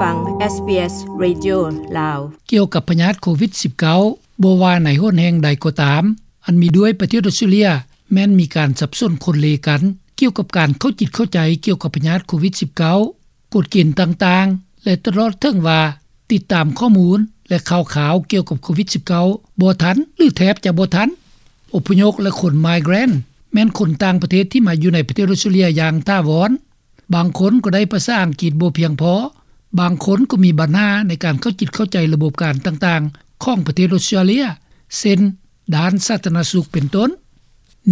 ຟັງ SBS Radio ລາວ. ກ່ຽວກັບພະຍາດໂຄວິດ-19, ບໍ່ວ່າໃນຫົນແຫ່ງໃດກໍຕາມ, ອັນມີດ້ວຍປະເທດອອສເຕຣເລັຍ ແມ່ນມີການສັບສົນຂົນເລກັນ ກ່ຽວກັບການເຂົ້າຈິດເຂົ້າໃຈກ່ຽວກັບພະຍາດໂຄວິດ-19, ກົດເກນຕ່າງໆ ແລະ ຕະຫຼອດເຖິງວ່າ ຕິດຕາມຂໍ້ມູນ ແລະ ຂ່າວຄາວກ່ຽວກັບໂຄວິດ-19 ບໍ່ທັນ ຫຼື ແທບຈະບໍ່ທັນ. ອົບພະຍົບ ແລະ ຄົນ migrant ແມ່ນຄົນຕ່າງປະເທດທີ່ມາຢູ່ໃນປະເທດອອສເຕຣເລັຍຢ່າງຖາວອນ. ບາງຄົນກໍໄດ້ພາສາອັງກິດບໍ່ພຽງພໍ, ບາງຄົນກໍມີບັນຫາໃນການເຂົ້າຈິດເຂົ້າໃຈລະບົບການຕ່າງໆຂອງປະເທດອອສເຕຣເລັຍ ເຊັ່ນ ດ້ານສາທາລະນະສຸກເປັນຕົ້ນ.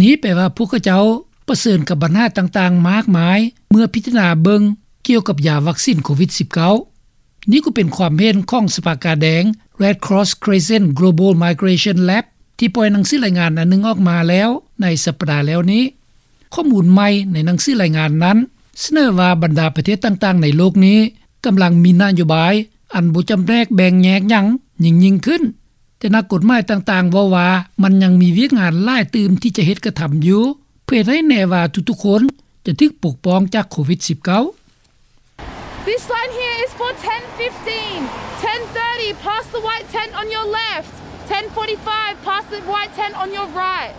ນີ້ແປວ່າພວກເຂົາເຈົ້າປະເຊີນກັບບັນຫາຕ່າງໆມາກມາຍ ເມື່ອພິຈາລະນາເບິ່ງກ່ຽວກັບຢາວັກຊີນໂຄວິດ-19. ນີ້ກໍເປັນຄວາມເຫັນຂອງສະພາກາແດງ Red Cross Crescent Global Migration Lab ທີ່ປ່ອຍໜັງສືລາຍງານອັນໜຶ່ງອອກມາແລ້ວໃນສັບປະດາແລ້ວນີ້. ຂໍ້ມູນໃໝ່ໃນໜັງສືລາຍງານນັ້ນ ສະເໜີວ່າບັນດາປະເທດຕ່າງໆໃນໂລກນີ້ ກຳລັງມີນະໂຍບາຍອັນບໍ່ຈຳແນກແບ່ງແຍກຫຍັງຍິ່ງໆຂຶ້ນ, ແຕ່ນັກກົດໝາຍຕ່າງໆເວົ້າວ່າ ມັນຍັງມີວຽກງານຫຼາຍຕື່ມທີ່ຈະເຮັດກະທຳຢູ່ ເພື່ອເຮັດໃຫ້ແນ່ວ່າທຸກໆຄົນຈະຖືກປົກປ້ອງຈາກໂຄວິດ-19. This line here is for ten fifteen, ten thirty, past the white tent on your left, ten forty-five, past the white tent on your right.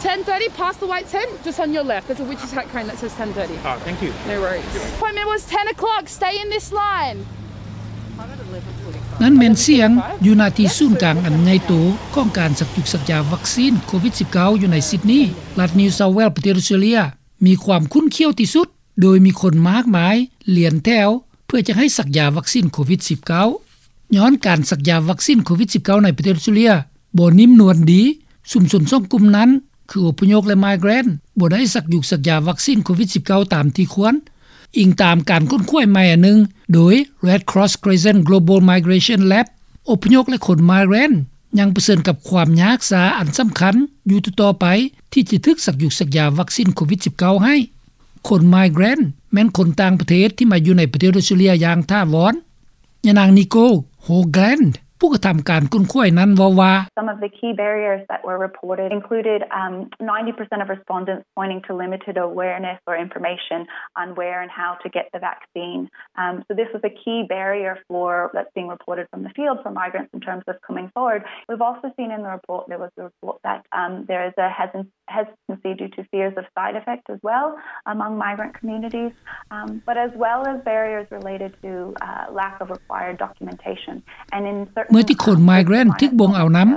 Ten thirty, past the white tent, just on your left. There's a witch attack cone that says ten thirty. Oh, thank you. No worries. Appointment was ten o'clock. Stay in this line. ນັ້ນແມ່ນສຽງຢູ່ໜ້າທີ່ສູນກາງອັນໃຫຍ່ໂຕຂອງການສັກຈຸກສັກຢາວັກຊີນໂຄວິດ-19 ຢູ່ໃນຊິດນີ, ລັດນິວເຊົາແວລ ປະເທດອອສເຕຣເລັຍ ມີຄວາມຂຸ້ນຂ້ຽວທີ່ສຸດ ໂດຍມີຄົນມາກມາຍລຽນແຖວເພື່ອຈະໃຫ້ສັກຢາວັກຊີນໂຄວິດ-19. ຍ້ອນການສັກຢາວັກຊີນໂຄວິດ-19 ໃນປະເທດອອສເຕຣເລັຍບໍ່ນິ້ມນວນດີ, ຊຸມຊົນສອງກຸ່ມນັ້ນ ຄືອົບພະຍົບ ແລະ migrant ບໍ່ໄດ້ສັກຢຸກສັກຢາວັກຊີນໂຄວິດ-19 ຕາມທີ່ຄວນ, ອີງຕາມການຄົ້ນຄວ້າໃໝ່ອັນໜຶ່ງໂດຍ Red Cross Crescent Global Migration Lab. ອົບພະຍົບ ແລະ ຄົນ migrant ຍັງປະເຊີນກັບຄວາມຍາກຊາອັນສຳຄັນຢູ່ຕໍ່ໆໄປ ທີ່ຈະຖືກສັກຢຸກສັກຢາວັກຊີນໂຄວິດ-19 ໃຫ້. ຄົນ migrant ແມ່ນຄົນຕ່າງປະເທດທີ່ມາຢູ່ໃນປະເທດອອສເຕຣເລັຍຢ່າງຖາວອນ. ຍານາງ Nicole Hoagland ຜູ້ກະທຳການຄົ້ນຄວ້ານັ້ນເວົ້າວ່າ, Some of the key barriers that were reported included, um, ninety percent of respondents pointing to limited awareness or information on where and how to get the vaccine. Um, so this was a key barrier for, that's being reported from the field for migrants in terms of coming forward. We've also seen in the report, there was a report that, um, there is a hesit- hesitancy due to fears of side effect as well among migrant communities, um, but as well as barriers related to, uh, lack of required documentation. And in certain, ເມື່ອທີ່ຄົນ um, migrant ຖືກບົ່ງເອົານຳ,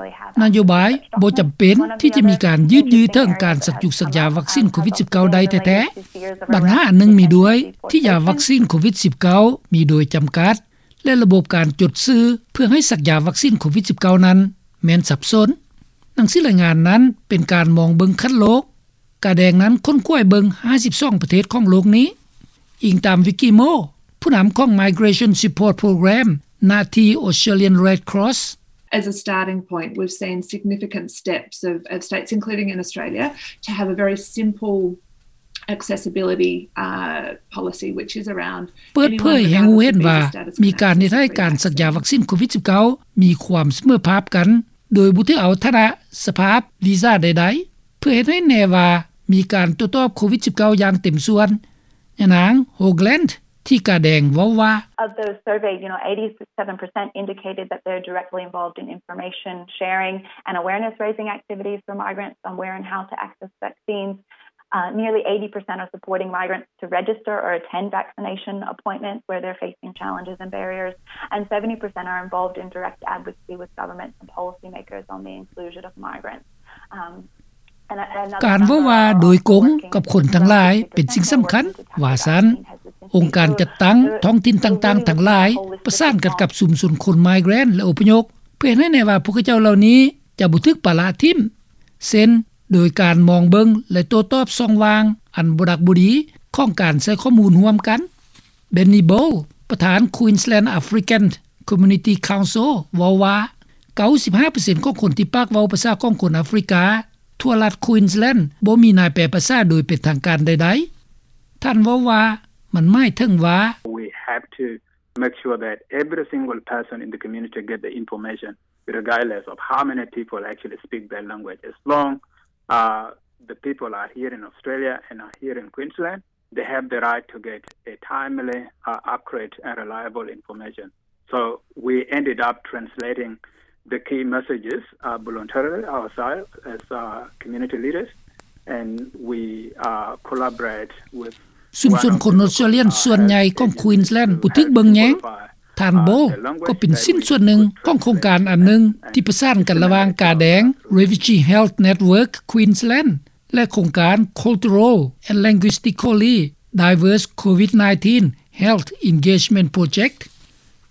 ນະໂຍບາຍບໍ່ຈຳເປັນທີ່ຈະມີການຍືດເຍື້ອເຖິງການສັກຢຸກສັກຢາວັກຊີນໂຄວິດ-19 ໄດ້ແທ້ໆ. ບັນຫາອັນໜຶ່ງມີດ້ວຍ ທີ່ຢາວັກຊີນໂຄວິດ-19 ມີໂດຍຈຳກັດ ແລະ ລະບົບການຈົດຊື່ເພື່ອໃຫ້ສັກຢາວັກຊີນໂຄວິດ-19 ນັ້ນແມ່ນສັບສົນ. ໜັງສືລາຍງານນັ້ນເປັນການມອງເບິ່ງຂັ້ນໂລກ. ກາແດງນັ້ນຄົ້ນຄວ້າເບິ່ງຫ້າສິບສອງປະເທດຂອງໂລກນີ້. ອີງຕາມ Vicky Moore ຜູ້ນຳຂອງ Migration Support Program ນະທີ່ Australian Red Cross. As a starting point, we've seen significant steps of, of states, including in Australia, to have a very simple accessibility, uh, policy, which is around ເປີດເຜີຍໃຫ້ຮູ້ເຫັນວ່າ ມີການເຮັດໃຫ້ການສັກຢາວັກຊີນໂຄວິດ-19 ມີຄວາມສະເໝີພາບກັນ ໂດຍບໍ່ຖືເອົາຖານະສະພາບວີຊາໃດໆ ເພື່ອເຮັດໃຫ້ແນ່ວ່າມີການໂຕ້ຕອບໂຄວິດ-19 ຢ່າງເຕັມສ່ວນ. ຍານາງ Hoagland ທີ່ກາແດງເວົ້າວ່າ, Of those surveyed, you know, eighty-seven percent indicated that they're directly involved in information sharing and awareness raising activities for migrants on where and how to access vaccines. Uh, nearly eighty percent are supporting migrants to register or attend vaccination appointments where they're facing challenges and barriers, and seventy percent are involved in direct advocacy with governments and policymakers on the inclusion of migrants. Um, ການເວົ້າວ່າໂດຍກົງກັບຄົນທັງຫຼາຍເປັນສິ່ງສຳຄັນ, ວ່າຊັ້ນ. ອົງການຈັດຕັ້ງທ້ອງຖິ່ນຕ່າງໆທັງຫຼາຍ ປະສານກັນກັບຊຸມຊົນຄົນ migrant ແລະ ອົບພະຍົບ ເພື່ອເຮັດໃຫ້ແນ່ວ່າພວກເຂົາເຈົ້າເຫຼົ່ານີ້ຈະບໍ່ຖືກປະລະຖິ້ມ, ເຊັ່ນ ໂດຍການມອງເບິ່ງ ແລະ ໂຕ້ຕອບຊ່ອງວ່າງອັນບໍ່ດັກບໍ່ດີຂອງການໃຊ້ຂໍ້ມູນຮ່ວມກັນ. Benny Ball ປະທານ Queensland African Community Council ເວົ້າວ່າ ເກົ້າສິບຫ້າເປີເຊັນຂອງຄົນທີ່ປາກເວົ້າພາສາຂອງຄົນອາຟຣິກາທົ່ວລັດ Queensland ບໍ່ມີນາຍແປພາສາໂດຍເປັນທາງການໃດໆ. ທ່ານເວົ້າວ່າ ມັນໝາຍເຖິງວ່າ, We have to make sure that every single person in the community get the information, regardless of how many people actually speak that language, as long, uh, the people are here in Australia and are here in Queensland. they have the right to get a timely, uh, accurate and reliable information. So we ended up translating the key messages, uh, voluntarily ourselves as, uh, community leaders, and we, uh, collaborate with ຊຸມຊົນຄົນອົດສະຕຣາເລຍສ່ວນໃຫຍ່ຂອງ Queensland ບໍ່ຖືກເບິ່ງແຍງ. ທ່ານ Bowe ກໍເປັນຊິ້ນສ່ວນໜຶ່ງຂອງໂຄງການອັນໜຶ່ງທີ່ປະສານກັນລະຫວ່າງກາແດງ Refugee Health Network Queensland ແລະ ໂຄງການ Cultural and Linguistically Diverse COVID nineteen Health Engagement Project.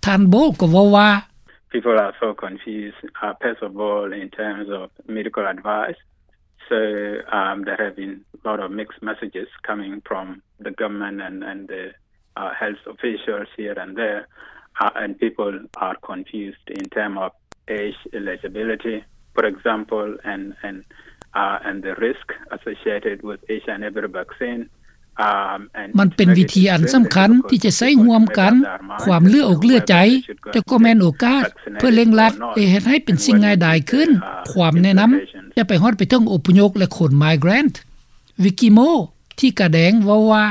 ທ່ານ Bowe ກໍເວົ້າວ່າ People are so confused, uh, first of all, in terms of medical advice. So, um, there have been a lot of mixed messages coming from the government and, and the, uh, health officials here and there, uh, and people are confused in terms of age eligibility, for example, and, and, uh, and the risk associated with H I V vaccine. Um, and ມັນເປັນວິທີອັນສຳຄັນທີ່ຈະໃຊ້ຮ່ວມກັນ ຄວາມເຫຼືອອົກເຫຼືອໃຈ, ແຕ່ກໍແມ່ນໂອກາດເພື່ອເລັ່ງລັດ ແລະ ເຮັດໃຫ້ເປັນສິ່ງງ່າຍດາຍຂຶ້ນ. ຄວາມແນະນຳຈະໄປຮອດໄປເຖິງອົບພະຍົບ ແລະ ຄົນ migrant. Vicky Moore ທີ່ກາແດງເວົ້າວ່າ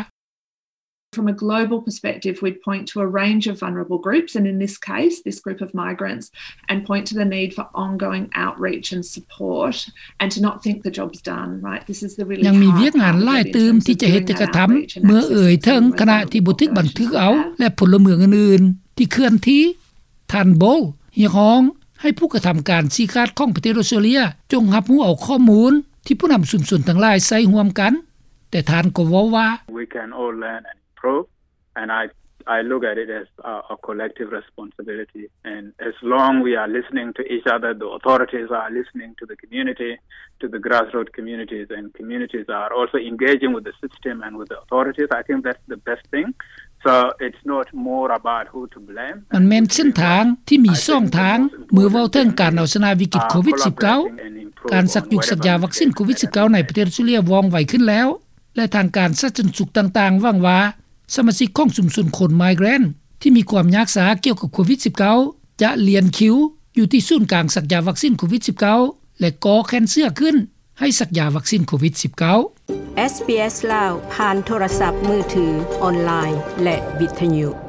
From a global perspective, we'd point to a range of vulnerable groups, and in this case, this group of migrants, and point to the need for ongoing outreach and support, and to not think the job's done, right? This is the really hard part of the interview, is doing that outreach and actually supporting them. ຍັງມີວຽກງານຫຼາຍຕື່ມທີ່ຈະເຮັດ ແຕ່ກະທຳ ເມື່ອເອີ່ຍເຖິງຄະນະທີ່ບໍ່ຖືກບັນທຶກເອົາ ແລະ ພົນລະເມືອງອື່ນໆທີ່ເຄື່ອນທີ່. ທ່ານ Bowe ຮຽກຮ້ອງໃຫ້ຜູ້ກະທຳການຊີ້ຂາດຂອງປະເທດອົດສະຕຣາເລຍ ຈົ່ງຮັບຮູ້ເອົາຂໍ້ມູນທີ່ຜູ້ນຳຊຸມຊົນທັງຫຼາຍໃຊ້ຮ່ວມກັນ, ແຕ່ທ່ານກໍເວົ້າວ່າ We can all learn and improve, and I, I look at it as a, a collective responsibility, and as long we are listening to each other, the authorities are listening to the community, to the grassroots communities, and communities are also engaging with the system and with the authorities, I think that's the best thing. So it's not more about who to blame. ມັນແມ່ນເສັ້ນທາງທີ່ມີສອງທາງ ເມື່ອເວົ້າເຖິງການເອົາຊະນະວິກິດໂຄວິດສິບເກົ້າ, ການສັກຍຸກສັກຢາວັກຊິນໂຄວິດສິບເກົ້າໃນປະເທດອົດສະຕຣາເລຍວ່ອງໄວຂຶ້ນແລ້ວ ແລະ ທາງການສາທາລະນະສຸກຕ່າງໆຫວັງວ່າ ສະມາຊິກຂອງຊຸມຊົນຄົນ migrant ທີ່ມີຄວາມຍາກຊ້າກ່ຽວກັບໂຄວິດສິບເກົ້າ ຈະລຽນຄິວຢູ່ທີ່ສູນກາງສັກຢາວັກຊິນໂຄວິດສິບເກົ້າ ແລະ ກໍ່ແຂນເສື້ອຂຶ້ນໃຫ້ສັກຢາວັກຊິນໂຄວິດສິບເກົ້າ. ເອສ ບີ ເອສ ລາວ ຜ່ານໂທລະສັບມືຖື, ອອນລາຍ ແລະ ວິທະຍຸ.